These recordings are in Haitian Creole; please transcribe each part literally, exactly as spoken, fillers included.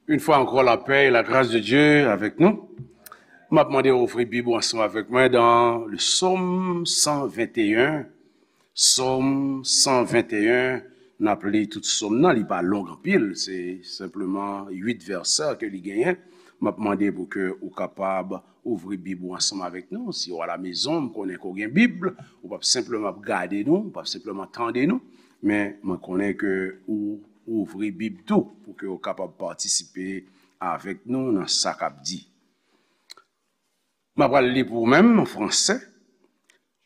Une fois encore, la paix et la grâce de Dieu avec nous. M ap mande w ouvri Bib ou ansanm avèk mwen dans le psaume cent vingt et un. Psaume cent vingt et un, n ap li tout psaume nan, li pa long anpil, se senpleman uit vèsè ke li genyen. M ap mande pou ke ou kapab ouvri Bib ou ansanm avèk nou. Si w a la mezon, m konnen ke w gen Bib, ou p ap senpleman ap gade nou, ou p ap senpleman tande nou, men mwen konnen ke ou ouvri Bib tou pou ke w kapab patisipe avèk nou nan sa k ap di. M ap pral li pou ou menm an fransè.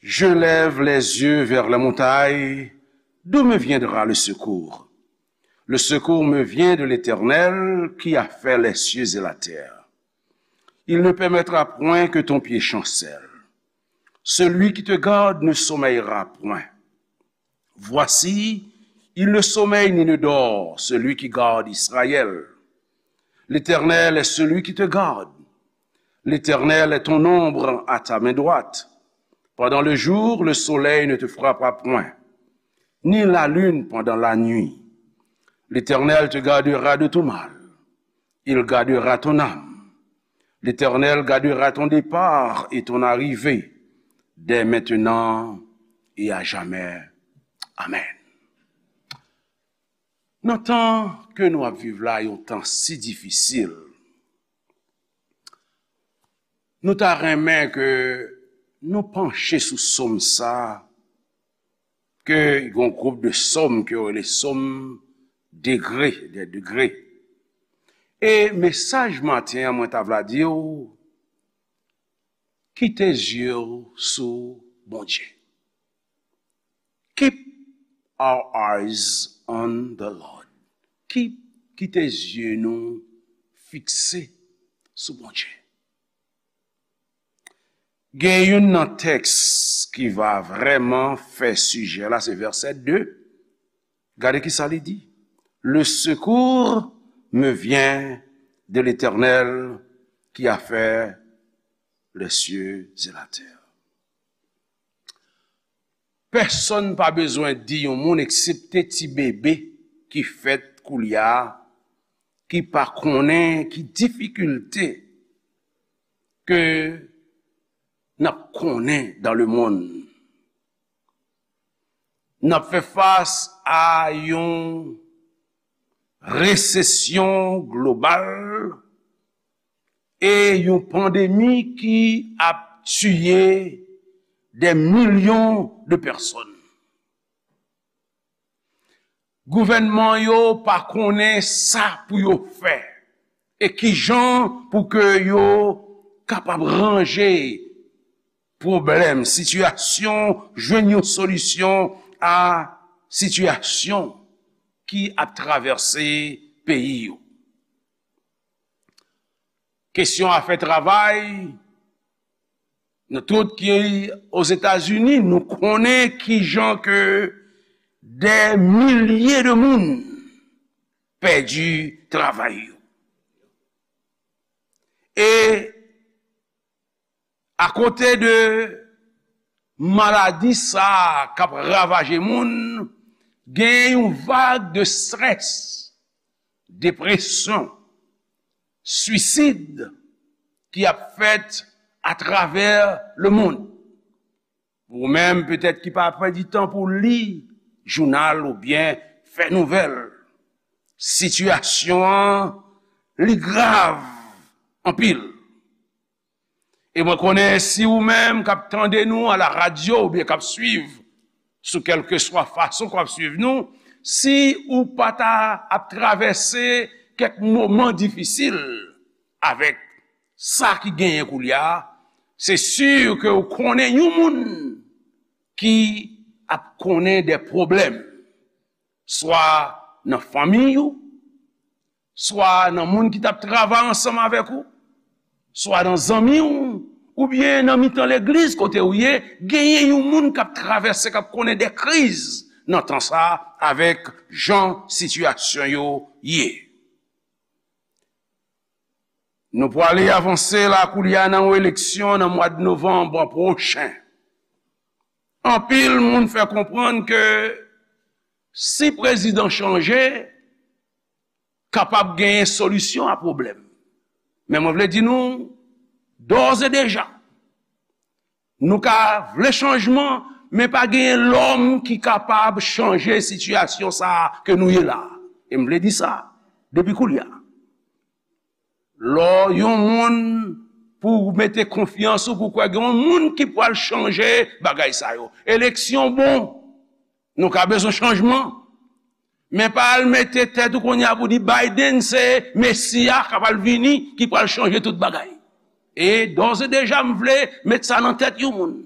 Je lève les yeux vers les montagnes, d'où me viendra le secours? Le secours me vient de l'Éternel qui a fait les cieux et la terre. Il ne permettra point que ton pied chancelle. Celui qui te garde ne sommeillera point. Voici, il ne sommeille ni ne dort, celui qui garde Israël. L'Éternel est celui qui te garde. L'Éternel est ton ombre à ta main droite. Pendant le jour, le soleil ne te frappera point, ni la lune pendant la nuit. L'Éternel te gardera de tout mal. Il gardera ton âme. L'Éternel gardera ton départ et ton arrivée, dès maintenant et à jamais. Amen. Nan tan ke nou ap viv la, yon tan si difisil, nou ta renmen ke nou panche sou psaume sa, ke yon gwoup de psaume ke yo rele psaume degre, des degrés. E mesaj maten an, mwen ta vle di w, kite zye w sou Bondye. Keep our eyes on the Lord. Keep, kite zye nou fikse sou Bondye. Gen youn nan tèks ki va vrèman fè sijè la, se vèsè de. Gade ki sa li di. Le secours me vient de l'Éternel qui a fait les cieux et la terre. Pèsonn pa bezwen di yon moun, eksepte ti bebe ki fèt koulye a, ki pa konnen ki difikilte ke n ap konnen dans le monde. N ap fè fas a yon resesyon global e yon pandemi ki ap tiye des millions de personnes. Gouvènman yo pa konnen sa pou yo fè e kijan pou ke yo kapab ranje pwoblèm, sitiyasyon, jwenn yon solisyon a sitiyasyon ki ap travèse peyi yo. Kesyon afè travay, nou tout ki Ozetazini, nou konnen kijan ke dè milye de moun pèdi travay yo. E akote de maladi sa a k ap ravaje moun, gen yon vag de strès, depresyon, swisid ki ap fèt atravè lemonn. Ou menm, petèt, ki pa pèdi tan pou li jounal oubyen fè nouvèl, sitiyasyon an, li grav anpil. E mwen konnen si ou menm k ap tande nou a la radyo oubyen k ap swiv sou kèlkeswa fason k w ap swiv nou, si ou pa ta ap travèse kèk moman difisil avèk sa ki genyen koulye a, se si ke ou konnen yon moun ki ap konnen de pwoblèm, swa nan fanmi ou, swa nan moun ki t ap travay ansanm avèk ou, swa nan zanmi w, oubyen nan mitan legliz kote ou ye, genyen yon moun k ap travèse, k ap konnen de kriz nan tan sa a avèk jan sitiyasyon yo ye. Nou pwale avanse la koulye a nan yon eleksyon nan mwa de novanm pwochen. Anpil moun fè konprann ke si prezidan chanje, kapab genyen solisyon a pwoblèm. Men mwen vle di nou, dòz e deja, nou ka vle chanjman, men pa genyen lòm ki kapab chanje sitiyasyon sa a ke nou ye la. E m vle di sa depi koulye a. Lè yon moun pou mete konfyans ou, pou kwè gen yon moun ki pral chanje bagay sa yo. Eleksyon bon, nou ka bezwen chanjman. Men pa al mete tèt ou kounye a pou di Biden se Mesi a k ap al vini, ki pral chanje tout bagay. E dòz e deja, m vle met sa nan tèt yon moun.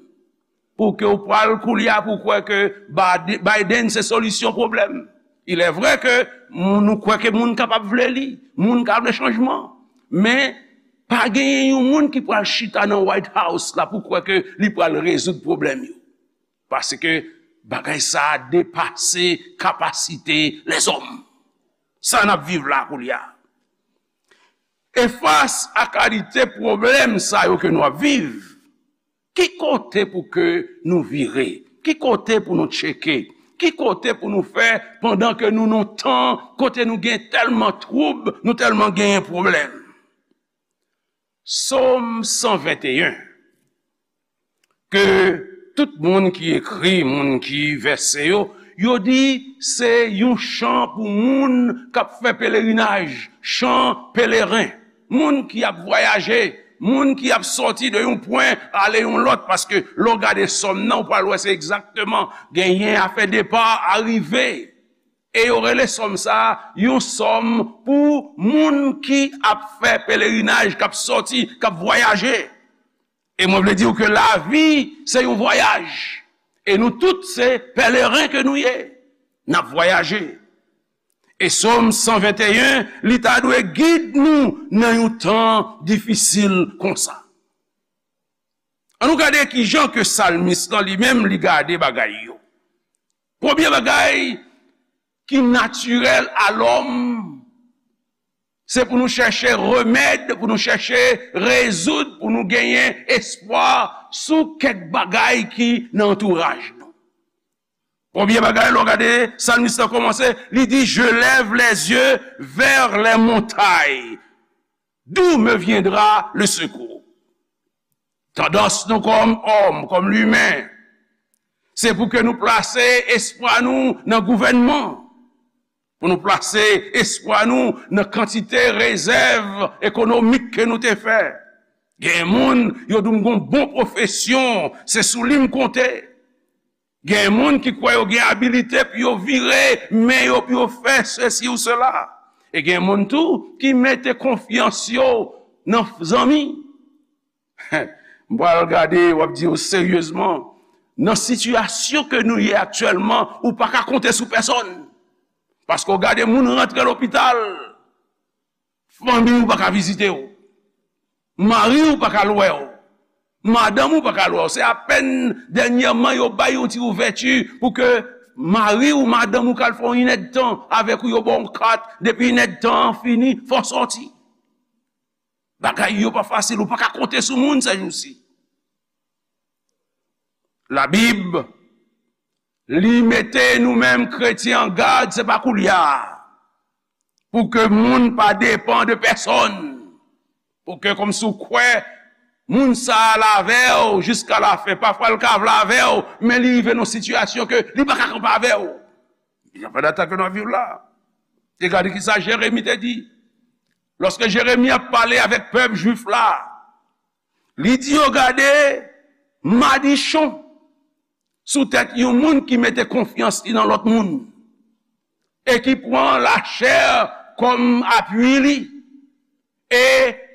Pou ke w pral koulye a pou kwè ke Bad-, Biden se solisyon pwoblèm. Il est vrai ke moun, nou kwè ke moun kapab vle li, moun ka vle chanjman. Men, pa genyen yon moun ki pral chita nan White House la pou kwè ke li pral rezoud pwoblèm yo. Paske bagay sa a depase kapasite lèzòm. Sa n ap viv la koulye a. E fas a kalite pwoblèm sa yo ke nou ap viv, ki kote pou ke nou vire? Ki kote pou nou tcheke? Ki kote pou nou fè pandan ke nou nan tan kote nou gen tèlman twoub, nou tèlman genyen pwoblèm? Sòm san venteyen, ke tout moun ki ekri, moun ki vèse yo, yo di se yon chan pou moun k ap fè pelerinaj, chan peleren, moun ki ap vwayaje, moun ki ap sòti de yon pwen ale yon lòt, paske lè w gade sòm nan, ou pral wè se egzakteman genyen afè depa, arive. E yo rele sòm sa a yon sòm pou moun ki ap fè pelerinaj, k ap sòti, k ap vwayaje. E mwen vle di w ke lavi se yon vwayaj. E nou tout se pèleren ke nou ye. N ap vwayaje. E sòm san venteyen, li ta dwe gid nou nan yon tan difisil konsa. Ann nou gade ki jan ke salmis lan li menm li gade bagay yo. Premye bagay ki natirèl a lòm, se pou nou chèche remèd, pou nou chèche rezoud, pou nou genyen espwa sou kèk bagay ki nan antouraj nou. Premye bagay, lè w gade salmis lan kòmanse, li di, je lève les yeux vers les montagnes. D'où me viendra le secours? Tandans nou kòm òm, kòm limen, se pou ke nou plase espwa nou nan gouvènman, pou nou plase espwa nou nan kantite rezèv ekonomik ke nou te fè. Gen moun, yo di m gon bon pwofesyon, se sou li m konte. Gen moun ki kwè yo gen abilite pou yo vire men yo, pou yo fè sesi ou sela. E gen moun tou ki mete konfyans yo nan zanmi. M pral gade, w ap di yo seryezman, nan sitiyasyon ke nou ye aktyèlman, ou pa ka konte sou pèsòn. Paske w gade moun rantre lopital, fanmi w pa ka vizite w. Mari w pa ka al wè w. Madanm ou pa ka al wè w. Se apèn dènyèman yo bay yon ti ouvèti pou ke mari w, madanm ou ka al fè yon inèdtan avèk ou, yo ba w yon kat, depi inèdtan an fini, fò w sòti. Bagay yo pa fasil, ou pa ka konte sou moun sèjousi. Labib, li mete nou menm kretyen an gad, se pa koulye a, pou ke moun pa depann de pèsòn, pou ke kòmsi w kwè moun sa a la avè w jiska lafen. Pafwa l ka vle avè w, men li rive nan sitiyasyon ke li pa ka kanpe avè w. Jan fè data ke nou ap viv la. E gade kisa Jeremi te di. Lòske Jeremi ap pale avèk pèp jwif la, li di yo, gade madichon sou tèt yon moun ki mete konfyans li nan lòt moun e ki pran lachè kòm apui li e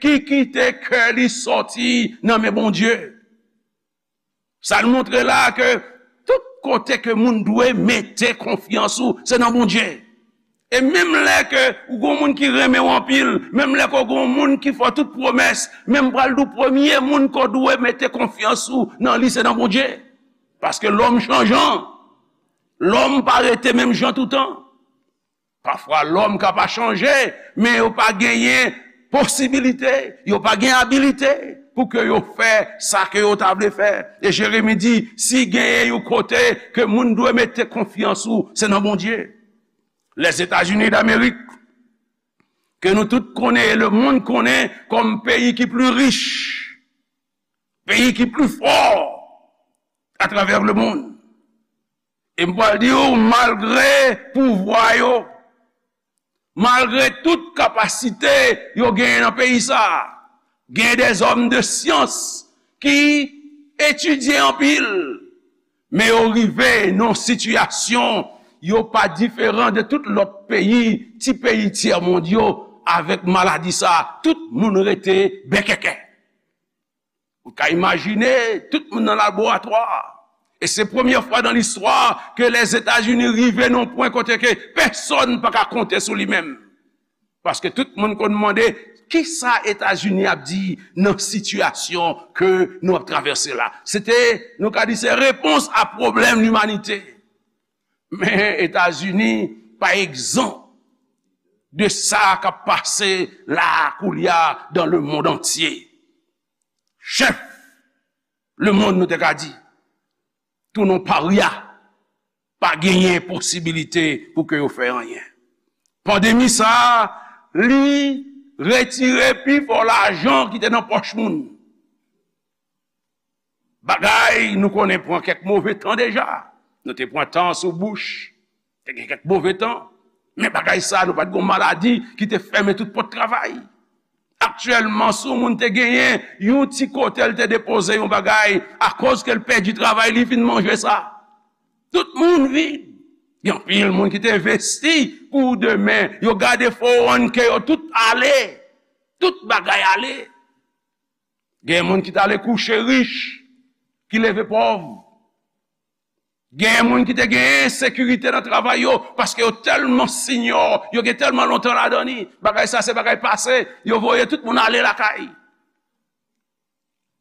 ki kite kè li sòti nan men Bondye. Sa l montre la ke tout kote ke moun dwe mete konfyans ou, se nan Bondye. E menm lè ke ou gon moun ki renmen w anpil, menm lè ke w gon moun ki fè w tout pwomès, men m pral di w premye moun ke w dwe mete konfyans ou nan li, se nan Bondye. Paske lòm chanjan. Lòm pa rete menm jan toutan. Pafwa, lòm ka pa chanje, men yo pa genyen posibilite, yo pa gen abilite pou ke yo fè sa ke yo ta vle fè. E Jeremi di, si genyen yon kote ke moun dwe mete konfyans ou, se nan Bondye. Lèzetazini Damerik, ke nou tout konnen e lemonn konnen kòm peyi ki pli rich, peyi ki pli fò atravè lemonn. E m pral di w, malgre pouvwa yo, malgre tout kapasite yo genyen nan peyi sa a, gen dèzòm de syans ki etidye anpil, men yo rive nan sitiyasyon yo pa diferan de tout lòt peyi, ti peyi tyèmond yo, avèk maladi sa a, tout moun rete bèkèkè. Ou ka imajine, tout moun nan laboratwa. E se premyè fwa nan listwa ke Lèzetazini rive nan pwen kote ke pèsonn pa ka konte sou li menm. Paske tout moun konn mande, kisa Etazini ap di nan sitiyasyon ke nou ap travèse la? Se te, nou ka di, se repons a pwoblèm limanite. Men Etazini pa egzan de sa k ap pase la koulye a dans le monde entier. Chèf lemonn, nou te ka di, tou non parya, pa genyen posibilite pou ke yo fè anyen. Pandemi sa a, li retire pi fò lajan ki te nan pòch moun. Bagay nou konnen pran kèk move tan deja. Nou te pran tan sou Bush. Te gen kèk move tan. Men bagay sa, nou pa t gen yon maladi ki te fèmen tout pòt travay. Aktyèlman, si yon moun te genyen yon ti kote l te depoze yon bagay, akoz ke l pèdi travay, li fin manje sa. Tout moun vid. Gen anpil moun ki te envesti pou demen. Yo gade fo o wan ke yo tout ale. Tout bagay ale. Gen moun ki t ale kouche rich, ki leve pòv. Gen moun ki te gen ensekirite nan travay yo, paske yo tèlman sinyò, yo gen tèlman lontan ladan li. Bagay sa se bagay pase, yo voye tout moun ale lakay.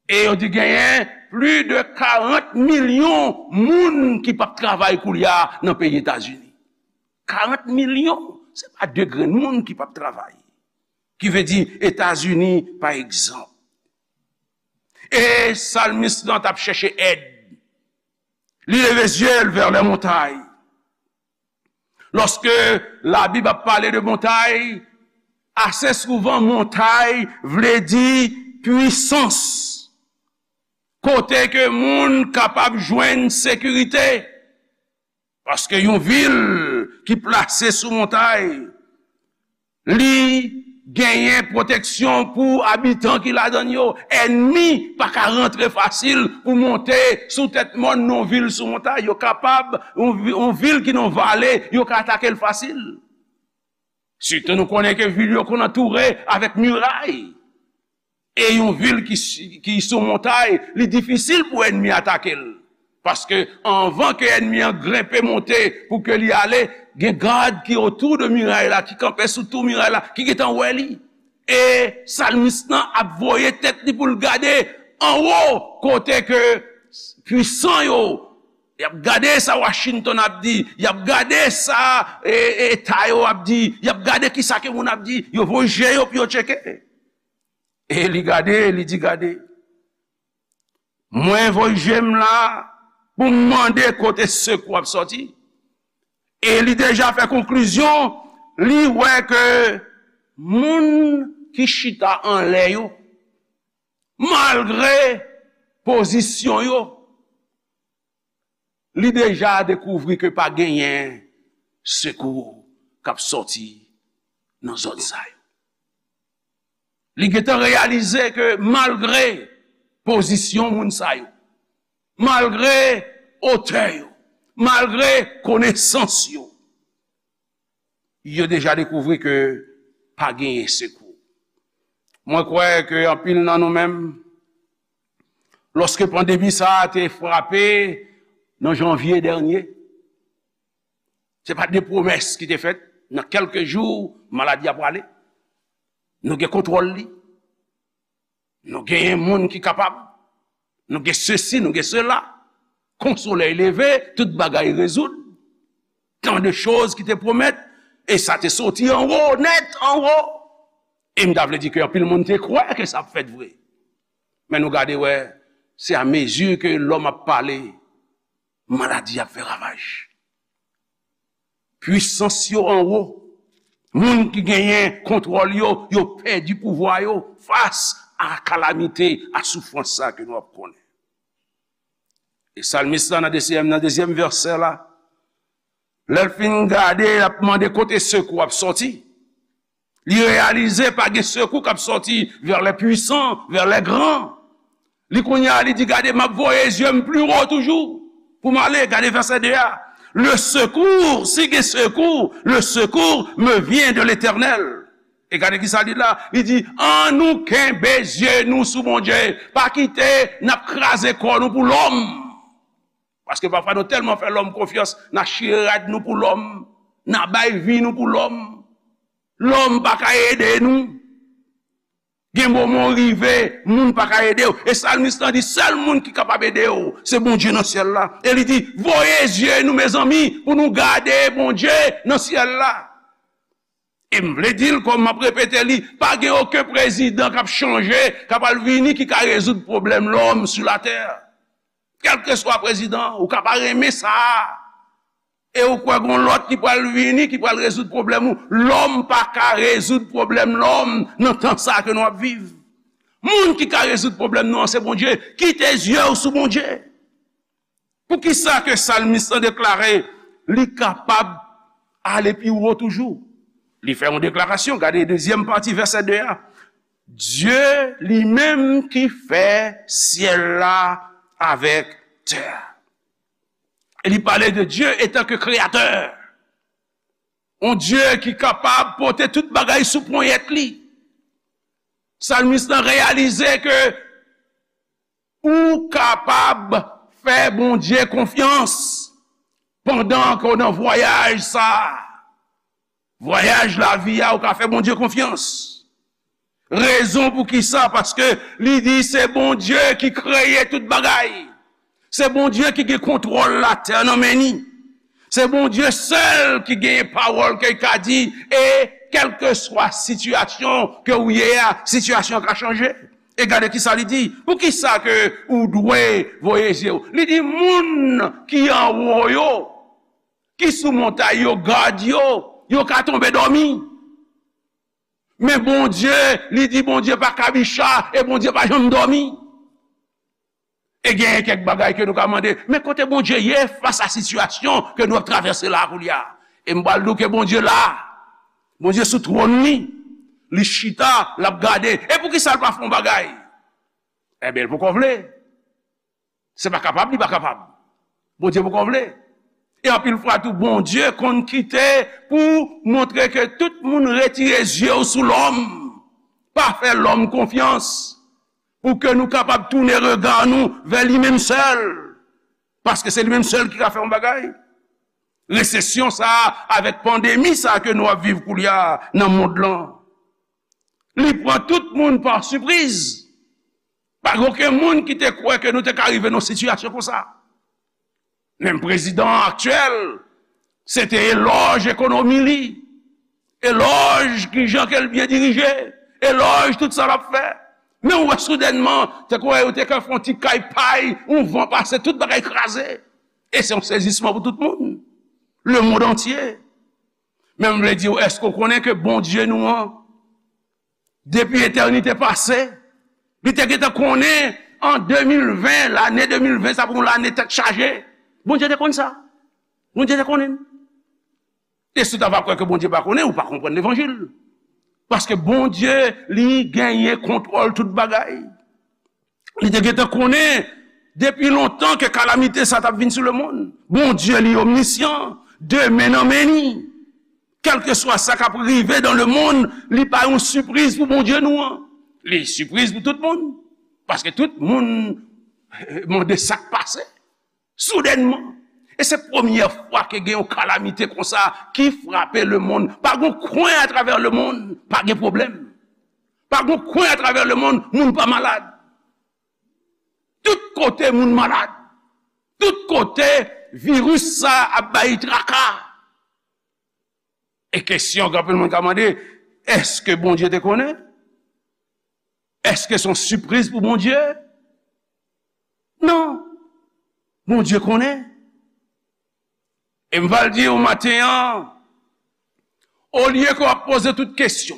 E yo di genyen plis de karant milyon moun ki p ap travay koulye a nan peyi Etazini. Karant milyon, se pa de grenn moun ki p ap travay. Ki vle di Etazini, pa egzanp. E salmis lan t ap chèche èd. Li leve zye l vè lè montay. Lòske Labib ap pale de montay, ase souvan montay vle di pwisans. Kote ke moun kapab jwenn sekirite. Paske yon vil ki plase sou montay, li genyen pwoteksyon pou abitan ki ladan l yo. Ènmi pa ka rantre fasil pou monte sou tèt mòn nan yon vil sou montay. Yo kapab, yon vi-, yon vil ki nan vale, yo ka atake l fasil. Sitou nou konnen ke vil yo konn antoure avèk miray. E yon vil ki, ki sou montay, li difisil pou ènmi atake l. Paske anvan ke ènmi an grenpe monte pou ke li ale, gen gad ki otou de miray la, ki kanpe sou tou miray la, ki gentan wè li. E salmis lan ap voye tèt li pou l gade anwo kote ke pwisan yo, y ap gade sa Washington ap di, y ap gade sa, e, e, eta yo ap di, y ap gade kisa ke moun ap di, yo voye je yo pou yo tcheke. E li gade, li di, gade, mwen voye je m la pou m mande kote sekou ap sòti. E li deja fè konklizyon, li wè ke moun ki chita anlè yo, malgre pozisyon yo, li deja dekouvri ke pa genyen sekou k ap sòti nan zòn sa yo. Li gentan reyalize ke malgre pozisyon moun sa yo, malgre otè yo, malgre konesans yo, yo deja dekouvri ke pa genyen sekou. Mwen kwè ke anpil nan nou menm, lòske pandemi sa a te frape nan janvye dènye, se pa de pwomès ki te fèt, nan kèlke jou, maladi a prale. Nou gen kontwòl li. Nou genyen moun ki kapab. Nou gen sesi, nou gen sela. Kon solèy leve, tout bagay rezoud. Tan de choz ki te pwomèt, e sa te soti anwo, nèt anwo. E m ta vle di ke anpil moun te kwè ke sa ap fèt vre. Men nou gade wè, se a mezi ke lòm ap pale, maladi ap fè ravaj. Pwisans yo anwo, Moun ki genyen kontwòl yo, yo pèdi pouvwa yo fas a kalamite, a soufrans sa ke nou ap konnen. E salmis la nan dezyèm, nan dezyèm vèsè la, lè l fin gade, l ap mande kote sekou ap sòti. Li reyalize pa gen sekou k ap sòti vers les puissants, vers les grands. Li kounye a, li di, gade, m ap voye zye m pli wo toujou pou m ale. Gade vèsè de a. Le secours, si gen sekou, le secours me vient de l'Éternel. E gade ki sa li la. Li di, ann nou kenbe zye nou sou Bondye. Pa kite n ap kraze kò nou pou lòm. Paske pafwa nou tèlman fè lòm konfyans, n a chire rad nou pou lòm, n a bay vi nou pou lòm. Lòm pa ka ede nou. Gen moman w rive, moun pa ka ede w. E salmis lan di, sèl moun ki kapab ede w, se Bondye nan syèl la. E li di, voye zye nou, mezanmi, pou nou gade Bondye nan syèl la. E m vle di l, kòm m ap repete li, pa gen okenn prezidan k ap chanje, k ap al vini, ki ka rezoud pwoblèm lòm sou latè. Kèlkeswa prezidan, ou ka pa renmen sa a. E ou kwè gon lòt ki pral vini, ki pral rezoud pwoblèm ou. Lòm pa ka rezoud pwoblèm lòm nan tan sa a ke nou ap viv. Moun ki ka rezoud pwoblèm nou an, se Bondye. Kite zye w sou Bondye. Poukisa ke salmis lan deklare li kapab ale pi wo toujou? Li fè yon deklarasyon, gade dezyèm pati vèsè de a. Dye li menm ki fè syèl la avèk tè a. E li pale de Dye etan ke kreyatè. Yon Dye ki kapab pote tout bagay sou ponyèt li. Salmis lan reyalize ke ou kapab fè Bondye konfyans pandan ke w nan vwayaj sa a. Vwayaj lavi a, ou ka fè Bondye konfyans. Rezon pou ki sa? Paske li di se Bondye ki kreye tout bagay. Se Bondye ki gen kontwòl latè nan men ni. Se Bondye sèl ki genyen pawòl ke l ka di, e kèlkeswa sitiyasyon ke ou ye a, sitiyasyon an ka chanje. E gade ki sa li di. Poukisa ke ou dwe voye zye w? Li di moun ki anwo yo, ki sou montay yo, gad yo, yo ka tonbe dòmi. Men Bondye, li di Bondye pa kabicha e Bondye pa janm dòmi. E genyen kèk bagay ke nou ka mande, men kote Bondye ye fas a sitiyasyon ke nou ap travèse la koulye a? E m pral di w ke Bondye la. Bondye sou twòn li. Li chita, l ap gade. E poukisa l pa fè yon bagay? Enben, l poko vle. Se pa kapab, li pa kapab. Bondye poko vle. E anpil fwa tou, Bondye konn kite pou montre ke tout moun retire zye w sou lòm. Pa fè lòm konfyans. Pou ke nou kapab tounen rega nou vè li menm sèl. Paske se li menm sèl ki ka fè yon bagay. Resesyon sa a, avèk pandemi sa a ke nou ap viv koulye a nan mond lan, li pran tout moun pa sipriz. Pa gen okenn moun ki te kwè ke nou te ka rive nan sitiyasyon konsa. Menm prezidan an aktyèl, se te elòj ekonomi li, elòj kijan ke l byen dirije, elòj tout sa l ap fè. Men ou wè soudènman, te kwè yo te ka fè yon ti kay pay, yon van pase, tout bagay kraze. E se yon sezisman pou tout moun. Le mond antye. Men m vle di w, èske w konnen ke Bondye nou an, depi etènite pase, li te gentan konnen an de mil ven, lane de mil ven, sa pou yon lane tèt chaje. Bondye te konn sa. Bondye te konnen. E si w ta va kwè ke Bondye pa konnen, ou pa konprann levanjil. Paske Bondye, li genyen kontwòl tout bagay. Li te gentan konnen depi lontan ke kalamite sa t ap vin sou lemonn. Bondye, li omnisyan, de men nan men ni. Kèlkeswa sa k ap rive dans le monde, li pa yon sipriz pou Bondye nou an. Li sipriz pou tout moun. Paske tout moun mande sa k pase. Soudènman. E se premyè fwa ke gen yon kalamite konsa ki frape lemonn. Pa gen yon kwen atravè lemonn, pa gen pwoblèm. Pa gen yon kwen atravè lemonn, moun pa malad. Tout kote moun malad. Tout kote viris sa ap bay traka. E kesyon ke anpil moun ka mande, èske Bondye te konnen? Èske se yon sipriz pou Bondye? Non. Bondye konnen. E m va l di w maten an, Olye ke w ap poze tout kesyon,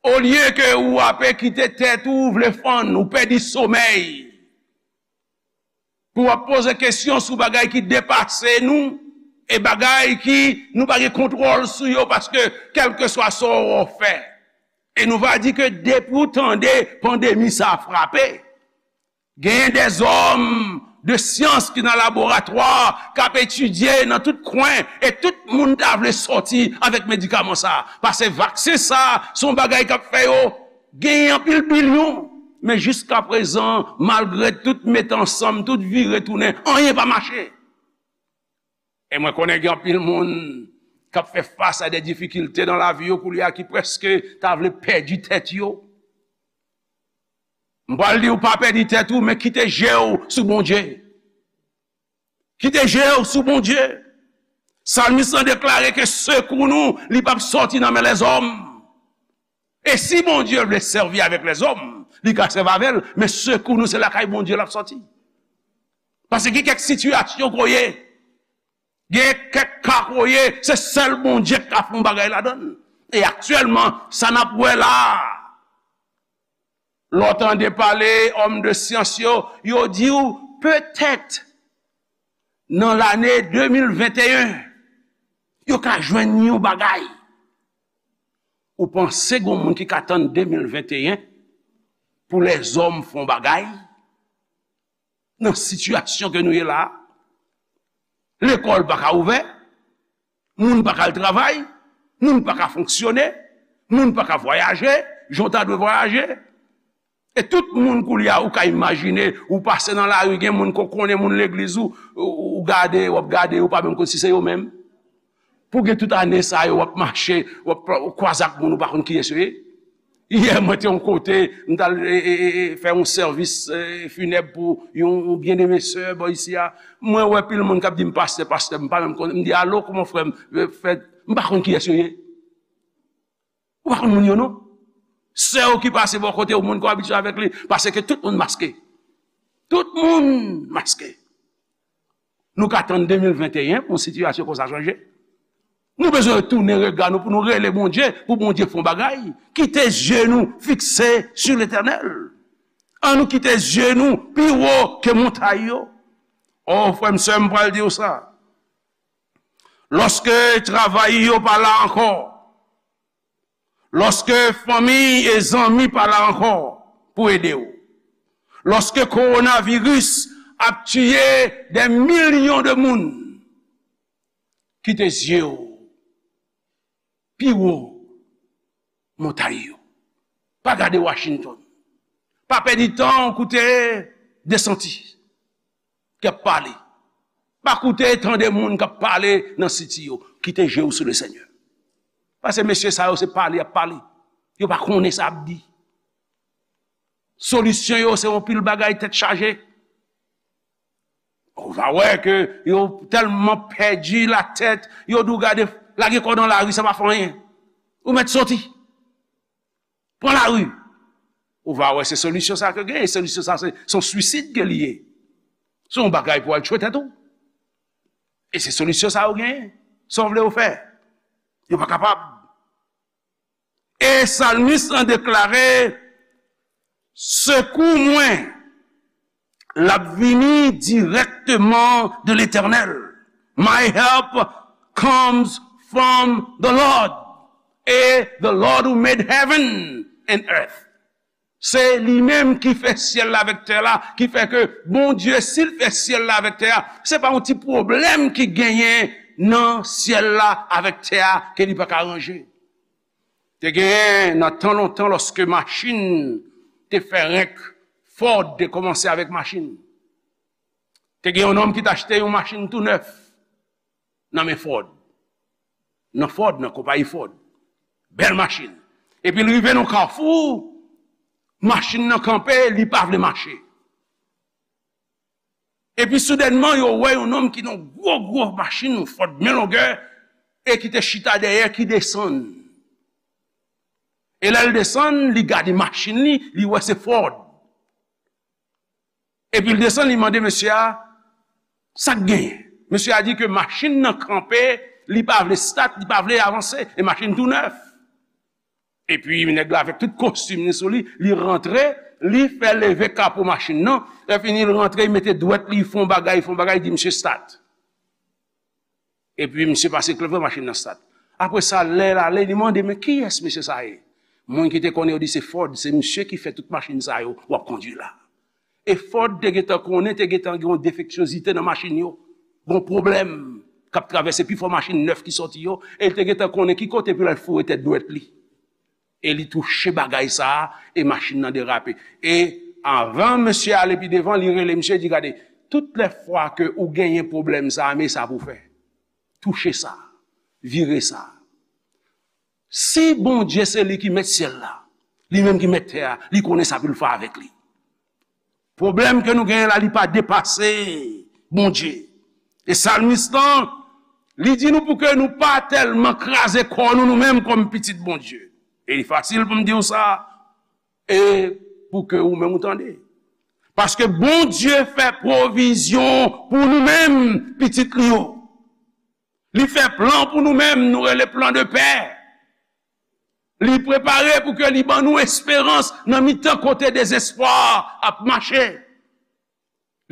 olye ke ou ape kite tèt ou vle fann, ou pèdi somèy, pou w ap poze kesyon sou bagay ki depase nou, e bagay ki nou pa gen kontwòl sou yo, paske kèlkeswa sa w fè, e nou va di ke depi w tande pandemi sa a frape, genyen dèzòm de syans ki nan laboratwa, k ap etidye nan tout kwen, e tout moun ta vle sòti avèk medikaman sa a. Paske vaksen sa a, se yon bagay k ap fè yo genyen anpil bilyon. Men jiskaprezan, malgre tout mete ansanm, tout vire tounen, anyen pa mache. E mwen konnen gen anpil moun k ap fè fas a de difikilte nan lavi yo koulye a ki prèske ta vle pèdi tèt yo. M pral di w pa pèdi tèt ou, men kite je w sou Bondye. Kite je w sou Bondye. Salmis lan deklare ke sekou nou, li p ap sòti nan men lèzòm. E si Bondye vle sèvi avèk lèzòm, li ka sèvi avè l, men sekou nou, se lakay Bondye l ap sòti. Paske gen kèk sitiyasyon kote w ye, gen kèk ka kote w ye, se sèl Bondye k ka fè yon bagay ladan l. E aktyèlman, sa n ap wè la a, lè w tande pale òm de syans yo, yo di w petèt nan lane de mil venteyen, yo ka jwenn yon bagay. Ou panse gen moun ki ka tann de mil venteyen pou lèzòm fè yon bagay? Nan sitiyasyon ke nou ye la a, lekòl pa ka ouvè, moun pa ka al travay, moun pa ka fonksyone, moun pa ka vwayaje jan w ta dwe vwayaje. E tout moun koulye a, ou ka imajine, ou pase nan lari, gen moun ke w konnen, moun legliz ou, ou, ou gade, w ap gade, ou pa menm konn si se yo menm. Pou gen tout ane sa yo, w ap mache, w ap kwaze ak moun, ou pa konn kiyès yo ye. Yè, mwen te yon kote, m t al, e, e, e, e, fè yon sèvis, e, finèb pou yon, yon byeneme sè bò isi a. Mwen wè pil moun k ap di m pastè, pastè, m pa menm konn, m di, "Alo, kòman frè m?" E, fè, m pa konn kiyès yo ye. Ou pa konn moun yo non. Sè w ki pase bò kote w, moun ke w abitye avèk li, paske tout moun maske. Tout moun maske. Nou ka tann de mil venteyen pou yon sitiyasyon konsa chanje? Nou bezwen tounen rega nou pou nou rele Bondye, pou Bondye fè yon bagay. Kite zye nou fikse sou Letènèl. Ann nou kite zye nou pi wo ke montay yo. O, frè m, sè m, pral di w sa. Lòske travay yo pa la ankò, lòske fanmi e zanmi pa la ankò pou ede w, lòske kowonaviris ap tiye dè milyon de moun, kite zye w pi wo montay yo. Pa gade Washington. Pa pèdi tan w koute Desantis k ap pale. Pa koute, tande moun k ap pale nan siti yo. Kite je w sou Lesenyè. Paske mesye sa yo se pale y ap pale. Yo pa konnen sa y ap di. Solisyon yo se yon pil bagay tèt chaje. Ou va wè ke yo tèlman pèdi latèt, yo di w gade, lage kò w nan lari, sa pa fè anyen. Ou mèt soti. Pran lari. Ou va wè se solisyon sa ke genyen. Solisyon sa se, se yon swisid ke li ye. Se yon bagay pou al tchwe tèt ou. E se solisyon sa yo genyen. Sa w vle yo fè. Yo pa kapab. E salmis lan deklare, sekou mwen l ap vini dirèkteman de Letènèl. My help comes from the Lord. E the Lord who made heaven and earth. Se li menm ki fè syèl la avèk tè la, ki fè ke Bondye, si l fè syèl la avèk tè a, se pa yon ti pwoblèm ki genyen nan syèl la avèk tè a ke li pa ka ranje. Te genyen nan tan lontan, lòske machin te fè renk, Ford te kòmanse avèk machin. Te gen yon nonm ki t achte yon machin tou nèf nan men Ford. Nan Ford, nan konpayi Ford. Bèl machin. Epi l rive nan kafou, machin nan kanpe, li pa vle mache. Epi soudènman, yo wè yon nonm ki nan gwo, gwo machin, yon Ford byen longè, e ki te chita dèyè, ki desann. E lè l desann, li gade machin li, li wè se Ford. Epi l desann, li mande mesye a, sa k genyen? Mesye a di ke machin nan kanpe, Li pa vle stat, li pa vle avanse, e machin tou nèf. Epi nèg la avèk tout kostim li sou li, li rantre, li fè leve kapo machin nan, lè fini li rantre, li mete dwèt li, li fè yon bagay, li fè yon bagay, li di, "Misye stat." Epi misye pase klè fè machin nan stat. Apre sa, lè l ale, li mande, "Men kiyès mesye sa ye?" Moun ki te konnen yo di, "Se Ford, se misye ki fè tout machin sa yo w ap kondui la." E Ford te gentan konnen, te gentan gen yon defeksyozite nan machin yo. Gon pwoblèm k ap travèse pifò machin nèf ki sòti yo, e li te gentan konnen ki kote pou l al foure tèt dwèt li. E li touche bagay sa a, e machin nan derape. E anvan mesye ale pi devan, li rele misye, di, "Gade, tout lè fwa ke ou genyen pwoblèm sa a, men sa pou w fè. Touche sa, vire sa." Si Bondye se li ki mèt syèl la, li menm ki mèt tè a, li konnen sa pou l fè avèk li. Pwoblèm ke nou genyen la, li pa depase Bondye. E salmis lan, li di nou pou ke nou pa tèlman kraze kò nou, nou menm kòm pitit Bondye. E li fasil pou m di w sa, e pou ke ou menm ou tande. Paske Bondye fè pwovizyon pou nou menm, pitit li yo. Li fè plan pou nou menm, nou rele plan de pè. Li prepare pou ke li ban nou esperans nan mitan kote dezespwa ap mache.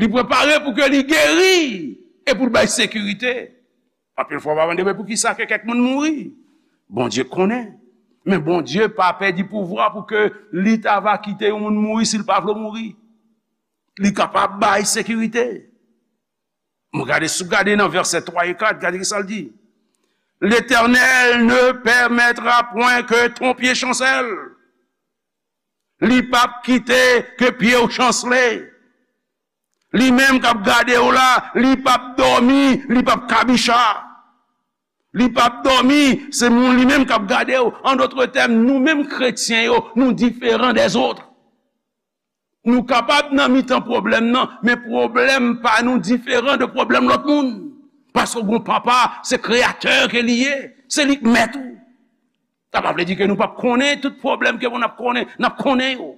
Li prepare pou ke li geri e pou l bay sekirite. Anpil fwa, w ap mande, "Men poukisa ke kèk moun mouri?" Bondye konnen. Men Bondye pa pèdi pouvwa pou ke li ta va kite yon moun mouri si l pa vle mouri. Li kapab bay sekirite. M gade, si w gade nan vèsè twa e kat, gade ki sa l di. L'Éternel ne permettra point que ton pied chancelle. Li p ap kite ke pye w chansle. Li menm k ap gade w la, li p ap dòmi, li p ap kabicha. Li p ap dòmi, se moun li menm k ap gade w. An dòt tèm, nou menm kretyen yo, nou diferan dèzòt. Nou kapab nan mitan pwoblèm nan, men pwoblèm pa nou diferan de pwoblèm lòt moun. Paske w gon papa, se kreyatè ke li ye, se li k mèt ou. Sa pa vle di ke nou p ap konnen tout pwoblèm ke n ap konnen, n ap konnen yo.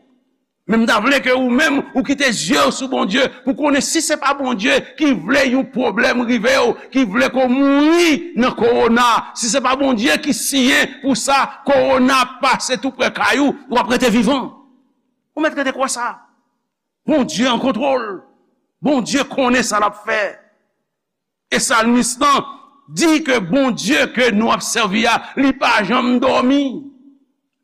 Men m ta vle ke ou menm, ou kite zye w sou Bondye, pou konnen si se pa Bondye ki vle yon pwoblèm rive w, ki vle ke w mouri nan kowona, si se pa Bondye ki siyen pou sa, kowona pase tou prè kay ou, w ap rete vivan. Ou mèt rete kwè sa. Bondye an kontwòl. Bondye konnen sa l ap fè. E salmis lan di ke Bondye ke nou ap sèvi a, li pa janm dòmi.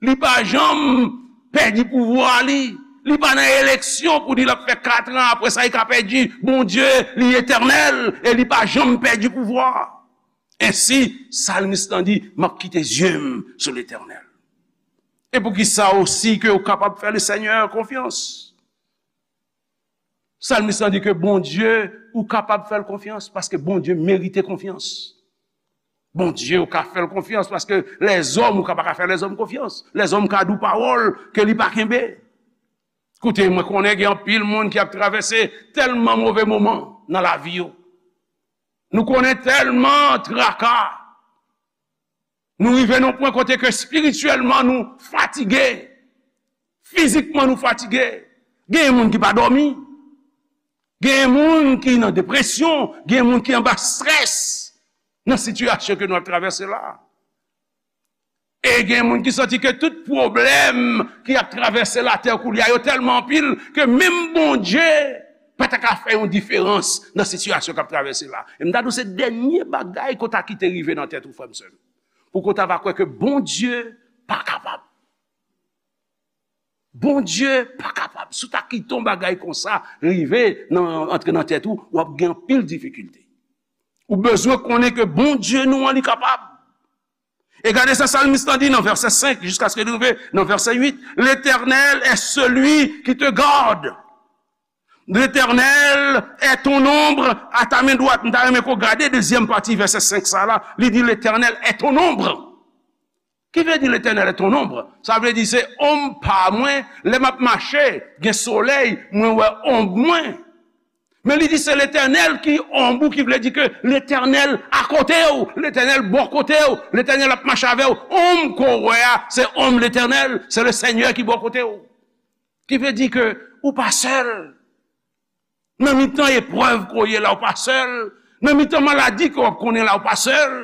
Li pa janm pèdi pouvwa li. Li pa nan eleksyon pou di l ap fè kat an, apre sa li ka pèdi. Bondye, li etènèl e li pa janm pèdi pouvwa. Ensi, salmis lan di, "M ap kite zye m sou Letènèl." E poukisa osi ke ou kapab fè Lesenyè konfyans? Salmis lan di ke Bondye, ou kapab fè l konfyans, paske Bondye merite konfyans. Bondye, ou ka fè l konfyans, paske lèzòm, ou ka pa ka fè lèzòm konfyans. Lèzòm ka di w pawòl ke li pa kenbe. Koute, mwen konnen gen anpil moun ki ap travèse tèlman move moman nan lavi yo. Nou konnen tèlman traka. Nou rive nan pwen kote ke espirityèlman nou fatige. Fizikman nou fatige. Gen moun ki pa dòmi. Gen moun ki nan depresyon. Gen moun ki anba estrès nan sitiyasyon ke nou ap travèse la. E gen moun ki santi ke tout pwoblèm ki ap travèse latè koulye a yo tèlman anpil ke menm Bondye pa ta ka fè yon diferans nan sitiyasyon k ap travèse la. E m ta di w se dènye bagay ke w ta kite rive nan tèt ou, frè m, sè m. Pou ke w ta va kwè ke Bondye pa kapab. Bondye pa kapab. Si w ta kite yon bagay konsa rive nan, antre nan tèt ou, w ap gen anpil difikilte. Ou bezwen konnen ke Bondye nou an, li kapab. E gade sa salmis lan di nan vèsè senk, jiskaske li rive nan vèsè uit. L'Éternel est celui qui te garde. L'Éternel est ton ombre à ta main droite. M ta renmen ke w gade dezyèm pati vèsè senk sa la. Li di, L'Éternel est ton ombre. Ki vle di L'Éternel est ton ombre? Sa vle di se onm pa mwen. Lè m ap mache, gen solèy, mwen wè onm mwen. Men li di se Letènèl ki onm ou, ki vle di ke Letènèl akote w, Letènèl bò kote w, Letènèl ap mache avè w. Onm ke w wè a, se onm Letènèl, se Lesenyè ki bò kote w. Ki vle di ke ou pa sèl. Nan mitan eprèv ke w ye la, ou pa sèl. Nan mitan maladi ke w ap konnen la, ou pa sèl.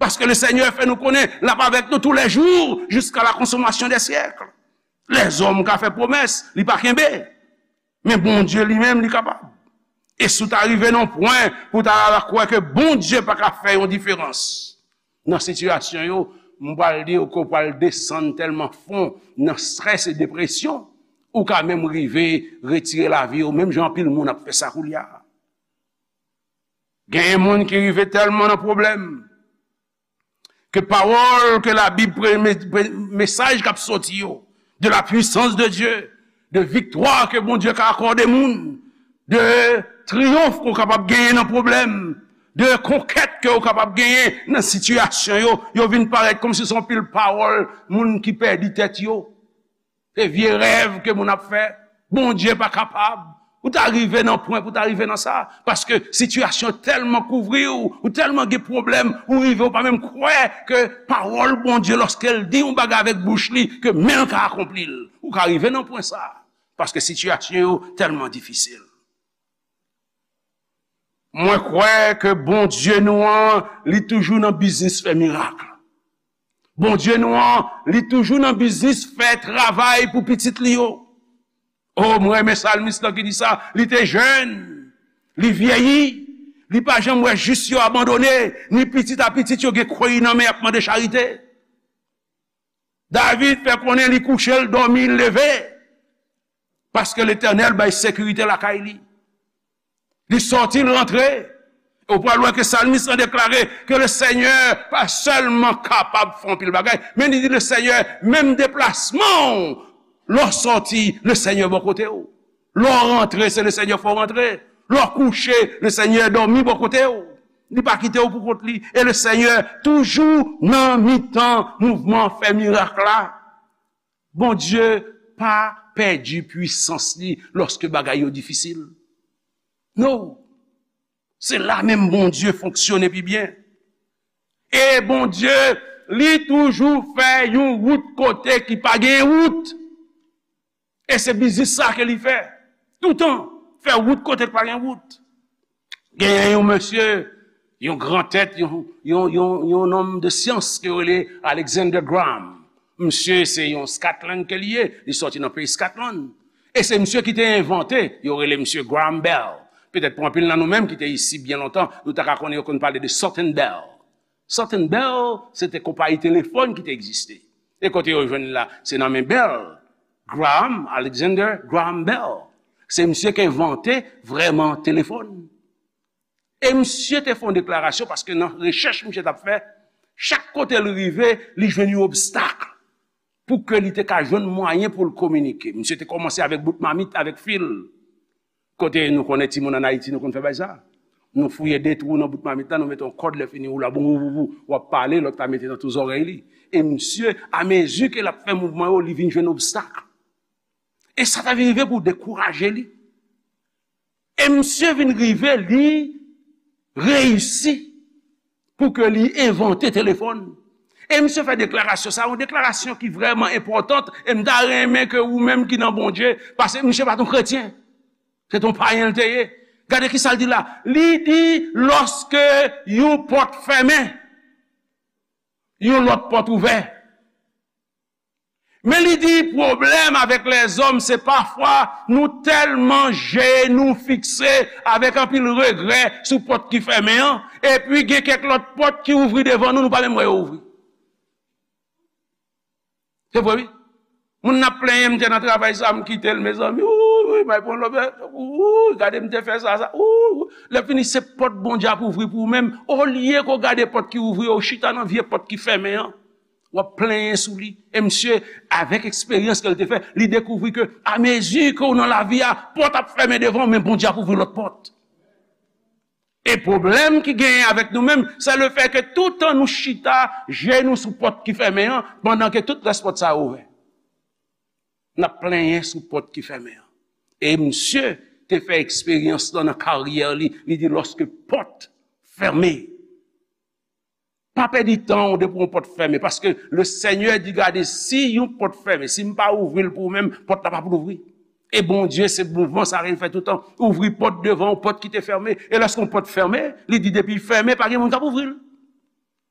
Paske le Senyè fè nou konnen l ap avèk nou tou lè jou, jiska la konsomasyon dè syèk. Lèzòm ka fè pwomès, li pa kenbe. Men Bondye li menm, li kapab. E si w ta rive nan pwen pou w ta kwè ke Bondye pa ka fè yon diferans nan sitiyasyon yo, m pral di w ke w pral desann tèlman fon nan strès e depresyon, ou ka menm rive retire lavi w, menm jan anpil moun ap fè sa koulye a. Genyen moun ki rive tèlman nan pwoblèm, ke pawòl ke Labib, pre-, me-, pre-, mesaj k ap soti yo, de la puissance de Dieu, de viktwa ke Bondye ka akòde moun, de triyonf ke w kapab genyen nan pwoblèm, de konkèt ke w kapab genyen nan sitiyasyon yo, yo vin parèt kòmsi se yon pil pawòl moun ki pèdi tèt yo. Se vye rèv ke moun ap fè. Bondye pa kapab. Ou ta rive nan pwen pou ta rive nan sa. Paske sitiyasyon tèlman kouvri w, ou tèlman gen pwoblèm, ou rive ou pa menm kwè ke pawòl Bondye, lòske l di yon bagay avèk bouch li, ke men l ka akonpli l. Ou ka rive nan pwen sa. Paske sitiyasyon yo tèlman difisil. Mwen kwè ke Bondye nou an, li toujou nan biznis fè mirak. Bondye nou an, li toujou nan biznis fè travay pou pitit li yo. O, mwen renmen salmis lan ki di sa, li te jèn, li vyeyi, li pa janm wè jis yo abandone, ni pitit a pitit yo gen kwen nan men y ap mande charite. David fè konnen li kouche, l dòmi, l leve. Paske Letènèl bay sekirite lakay li. Li sòti, l rantre. E w pral wè ke salmis lan deklare ke le Senyè pa sèlman kapab fè anpil bagay, men li di le Senyè, menm deplasman w, lè w sòti, le Senyè bò kote w. Lè w rantre, se le Senyè fè w rantre. Lè w kouche, le Senyè dòmi bò kote w. Li pa kite w pou kont li. E le Senyè toujou nan mitan mouvman fè mirak la. Bondye pa pèdi pwisans li lòske bagay yo difisil. No. Se la menm Bondye fonksyone pi byen. E Bondye, li toujou fè yon wout kote ki pa gen wout. E se biznis sa ke li fè. Toutan, fè wout kote ki pa gen wout. Genyen yon mesye, yon gran tèt, yon, yon, yon, yon nonm de syans ke yo rele Alexander Graham. Misye se yon Scotland ke li ye, li sòti nan peyi Scotland. E se misye ki te envante, yo rele misye Graham Bell. Petèt pou anpil nan nou menm ki te isi byen lontan, nou ta ka konnen yo konn pale de Sutton Bell. Sutton Bell, se te konpayi telefòn ki te egziste. E kote yo jwenn li la, se nan men Bell, Graham, Alexander Graham Bell. Se misye ki envante vrèman telefòn. E misye te fè yon deklarasyon, paske nan rechèch misye t ap fè, chak kote l rive, li jwenn yon obstak pou ke li te ka jwenn mwayen pou l kominike. Misye te kòmanse avèk bout mamit, avèk fil. Kote nou konnen timoun ann Ayiti, nou konn fè bagay sa. Nou fouye de twou nan bout mamit la, nou mete yon kòd, lè fini ou la, boum, boum, boum, boum, w ap pale, lòt la mete nan tou zòrèy li. E misye, amezi ke l ap fè mouvman yo, li vin jwenn obstak. E sa ta vin rive pou dekouraje li. E misye vin rive, li reyisi pou ke li envante telefòn. E misye fè deklarasyon sa, yon deklarasyon ki vrèman enpòtan, e m ta renmen ke ou menm ki nan Bondye, paske misye pa t yon kretyen. Se t yon payen l te ye. Gade ki sa l di la. Li di, lòske yon pòt fèmen, yon lòt pòt ouvè. Men li di, pwoblèm avèk lèzòm, se pafwa nou tèlman je nou fikse avèk anpil regrè sou pòt ki fèmen an, epi gen kèk lòt pòt ki ouvri devan nou, nou pa menm wè yo ouvri. Se vre, wi. Moun nan ap plenyen, m te nan travay sa, m kite l, mezanmi. Wouy, wouy, may pran lòbè. Wouy, gade m te fè sa, sa. Wouy, wouy. Lè fini, se pòt Bondye ap ouvri pou ou menm. Olye ke w gade pòt ki ouvri, ou chita nan vye pòt ki fèmen an. W ap plenyen sou li. E misye, avèk eksperyans ke l te fè, li dekouvri ke, amezi ke w nan lavi a, pòt ap fèmen devan w, men Bondye ap ouvri lòt pòt. E pwoblèm ki genyen avèk nou menm, se le fè ke toutan nou chita, je nou sou pòt ki fèmen an, pandan ke tout rès pòt sa yo ouvè. N ap plenyen sou pòt ki fèmen an. E misye te fè eksperyans lan nan karyè li, li di, lòske pòt fèmen, pa pèdi tan w depi yon pòt fèmen, paske le Senyè di, gade, si yon pòt fèmen, si m pa ouvri l pou ou menm, pòt la p ap louvri. E Bondye, se mouvman sa ke l fè toutan. Ouvri pòt devan w, pòt ki te fèmen. E lòske yon pòt fèmen, li di, depi l fèmen, pa gen moun k ap ouvri l.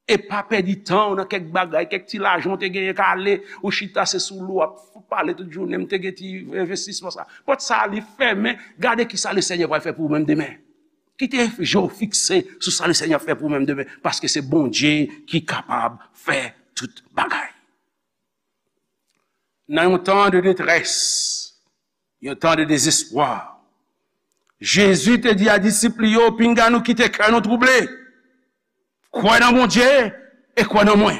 E pa pèdi tan w nan kèk bagay, kèk ti lajan w te genyen k ale, ou chita se sou lou w ap pale tout jounen, m te gen ti envestisman sa. Pòt sa a li fèmen, gade kisa Lesenyè pral fè pou ou menm demen. Kite je w fikse sou sa Lesenyè ap fè pou ou menm demen, paske se Bondye ki kapab fè tout bagay. Nan yon tan de detrès, yon tan de dezespwa, Jezi te di a disip li yo, "Pinga nou kite kè nou twouble. Kwè nan Bondye e kwè nan mwen."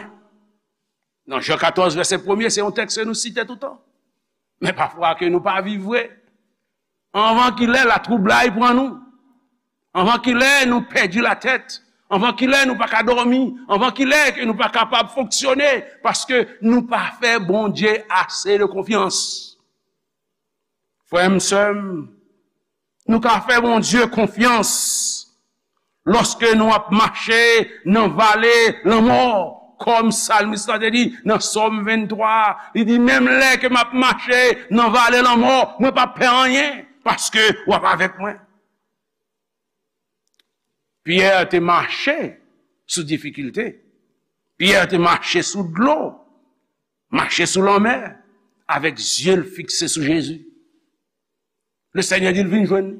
Nan Jan katòz, vèsè premye, se yon tèks ke nou site toutan. Men pafwa ke nou pa viv vre. Anvan kilè, latwoublay pran nou. Anvan kilè, nou pèdi latèt. Anvan kilè, nou pa ka dòmi. Anvan kilè, ke nou pa kapab fonksyone. Paske nou pa fè Bondye ase de konfyans. Frè m, sè m, nou ka fè Bondye konfyans lòske nou ap mache nan vale lanmò, kòm salmis la te di nan Sòm venntwa, li di, "Menm lè ke m ap mache nan vale lanmò, mwen p ap pè anyen, paske w ap avèk mwen." Pyè te mache sou difikilte. Pyè te mache sou dlo, mache sou lanmè, avèk zye l fikse sou Jezi. Lesenyè di l vin jwenn li.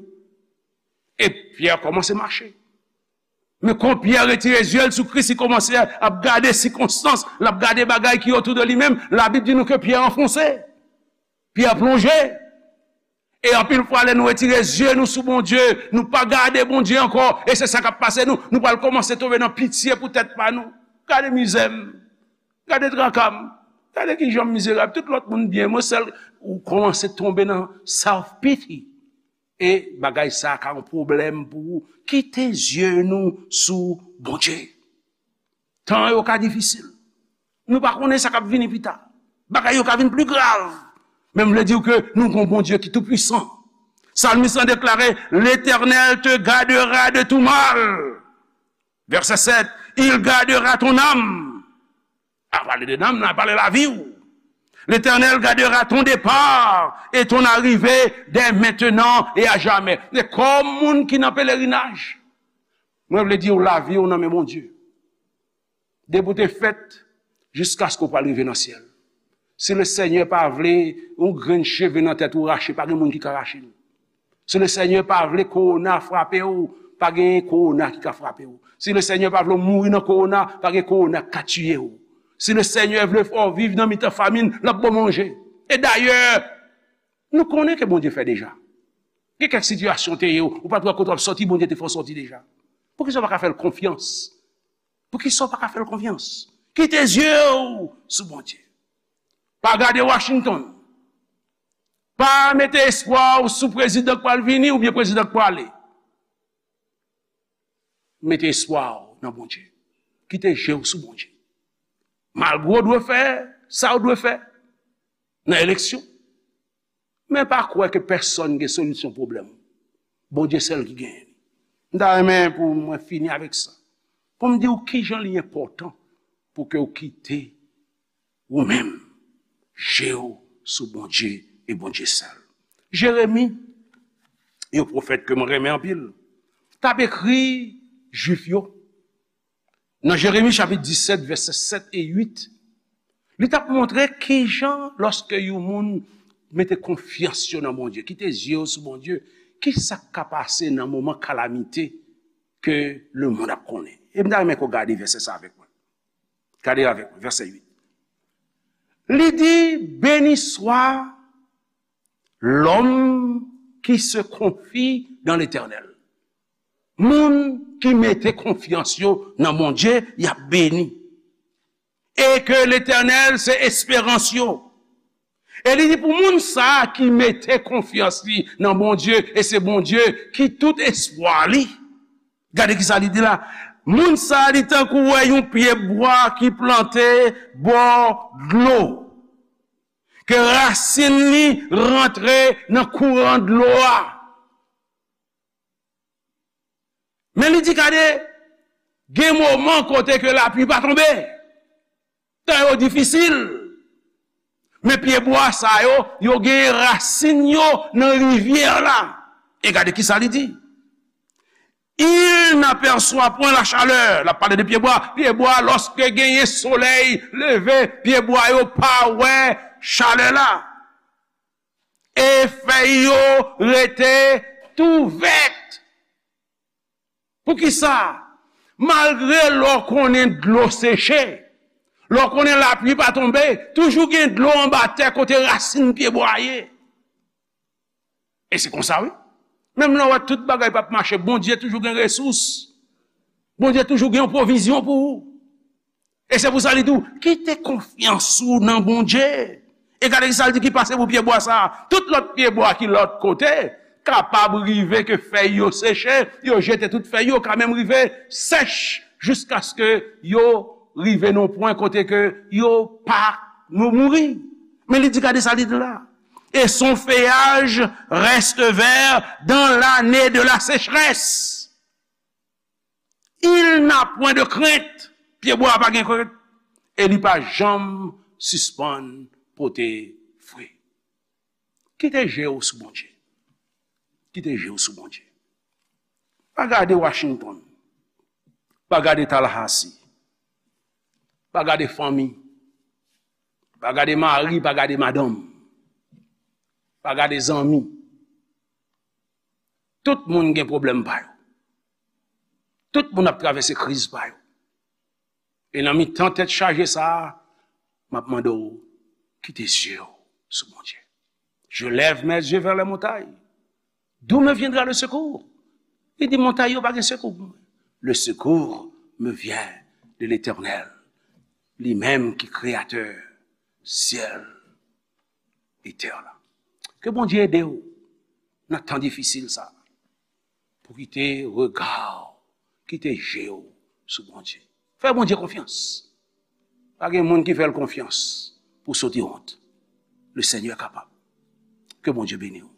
E Pyè kòmanse mache. Men kon Pyè retire zye l sou Kris, li kòmanse ap gade sikonstans, l ap gade bagay ki otou de li menm. Labib di nou ke Pyè anfonse. Pyè plonje. E anpil fwa, lè nou retire zye nou sou Bondye, nou pa gade Bondye ankò, e se sa k ap pase nou. Nou pral kòmanse tonbe nan pitye pou tèt pa nou. Gade mizè m, gade traka m, gade kijan m mizerab. Tout lòt moun byen, mwen sèl. Ou kòmanse tonbe nan self-pity. E bagay sa a ka yon pwoblèm pou ou. Kite zye nou sou Bondye. Tan yo ka difisil. Nou pa konnen sa k ap vini pita. Bagay yo ka vin pli grav. Men m vle di w ke nou gon Bondye ki toupwisan. Salmis lan deklare, "L'Éternel te gardera de tout mal." Vèsè sèt, "Il gardera ton âme." A pale de nanm nan, a pale lavi w. "L'Éternel gardera ton départ et ton arrivée dès maintenant et à jamais." E kòm moun ki nan pelerinaj, mwen vle di w, lavi w nan men Bondye. Depi w te fèt, jiskaske w pral rive nan syèl. Si Lesenyè pa vle yon grenn cheve nan tèt ou rache, pa gen moun ki ka rache l. Si Lesenyè pa vle kowona frape w, pa gen kowona ki ka frape w. Si Lesenyè pa vle w mouri nan kowona, pa gen kowona k ka tiye w. Si Lesenyè vle fè w viv nan mitan famin, l ap ba w manje. E dayè, nou konnen ke Bondye fè deja. Gen kèk sitiyasyon te ye, ou pa t wè kote w ap sòti, Bondye te fè w sòti deja. Poukisa w pa ka fè l konfyans? Poukisa w pa ka fè l konfyans? Kite zye w sou Bondye. Pa gade Washington. Pa mete espwa w sou prezidan k pral vini oubyen prezidan k prale. Mete espwa w nan Bondye. Kite je w sou Bondye. Malgre w dwe fè sa w dwe fè nan eleksyon, men pa kwè ke pèsonn gen solisyon pwoblèm ou. Bondye sèl ki genyen li. M ta renmen pou mwen fini avèk sa. Pou m di w kijan li enpòtan pou ke w kite ou menm je w sou Bondye e Bondye sèl. Jeremi, yon pwofèt ke mwen renmen anpil, t ap ekri Jwif yo. Nan Jeremi chapit disèt, vèsè sèt e uit, li t ap montre kijan, lòske yon moun mete konfyans yo nan Bondye, kite zye yo sou Bondye, ki sa k ka pase nan moman kalamite ke lemonn ap konnen. E m ta renmen ke w gade vèsè sa avèk mwen. Gade avèk mwen, vèsè uit. Li di, "Béni soit l'homme qui se confie dans l'Éternel." Moun ki mete konfyans yo nan Bondye, y ap beni. E ke Letènèl se esperans yo. E li di pou moun sa a ki mete konfyans li nan Bondye, e se Bondye ki tout espwa li. Gade ki sa li di la. Moun sa a, li tankou wè yon pye bwa ki plante bò dlo. Ke rasin li rantre nan kouran dlo a. Men li di, gade, gen moman kote ke lapli pa tonbe. Tan yo difisil. Men pye bwa sa yo, yo gen rasin yo nan rivyè la. E gade ki sa li di. Il n'aperçoit point la chaleur. L ap pale de pyebwa. Pyebwa, lòske genyen solèy leve, pyebwa yo pa wè chalè la. E fèy yo rete tou vèt. Poukisa? Malgre lè w konnen dlo seche, lè w konnen lapli pa tonbe, toujou gen dlo anba tè kote rasin pyebwa ye. E se konsa, wi. Menm lè w wè tout bagay p ap mache, Bondye toujou gen resous. Bondye toujou gen yon pwovizyon pou ou. E se pou sa li di w, kite konfyans ou nan Bondye. E gade ki sa l di ki pase pou pyebwa sa a. Tout lòt pyebwa ki lòt kote, kapab rive ke fèy yo seche, yo jete tout fèy yo, ka menm rive sèch, jiskaske yo rive nan yon pwen kote ke yo pa nou mouri. Men li di, gade sa li di la. Et son feuillage reste vert dans l'année de la sécheresse. Il n'a point de crainte. Pyebwa a pa gen krent. E li pa janm sispann pote fwi. Kite je w sou Bondye. Kite je w sou Bondye. Pa gade Washington. Pa gade Tallahassee. Pa gade fanmi. Pa gade mari, pa gade madanm. Pa gade zanmi. Tout moun gen pwoblèm pa yo. Tout moun ap travèse kriz pa yo. E nan mitan tèt chaje sa a, m ap mande w, kite zye w sou Bondye. Je lève mes yeux vers les montagnes. D'où me viendra le secours? Li di, montay yo pa gen sekou pou mwen. Le secours me vient de l'Éternel, li menm ki kreyatè syèl e tè la. Ke Bondye ede w nan tan difisil sa a, pou kite rega w, kite je w sou Bondye. Fè Bondye konfyans. Pa gen moun ki fè l konfyans pou soti wont. Le Seigneur est capable. Ke Bondye beni w.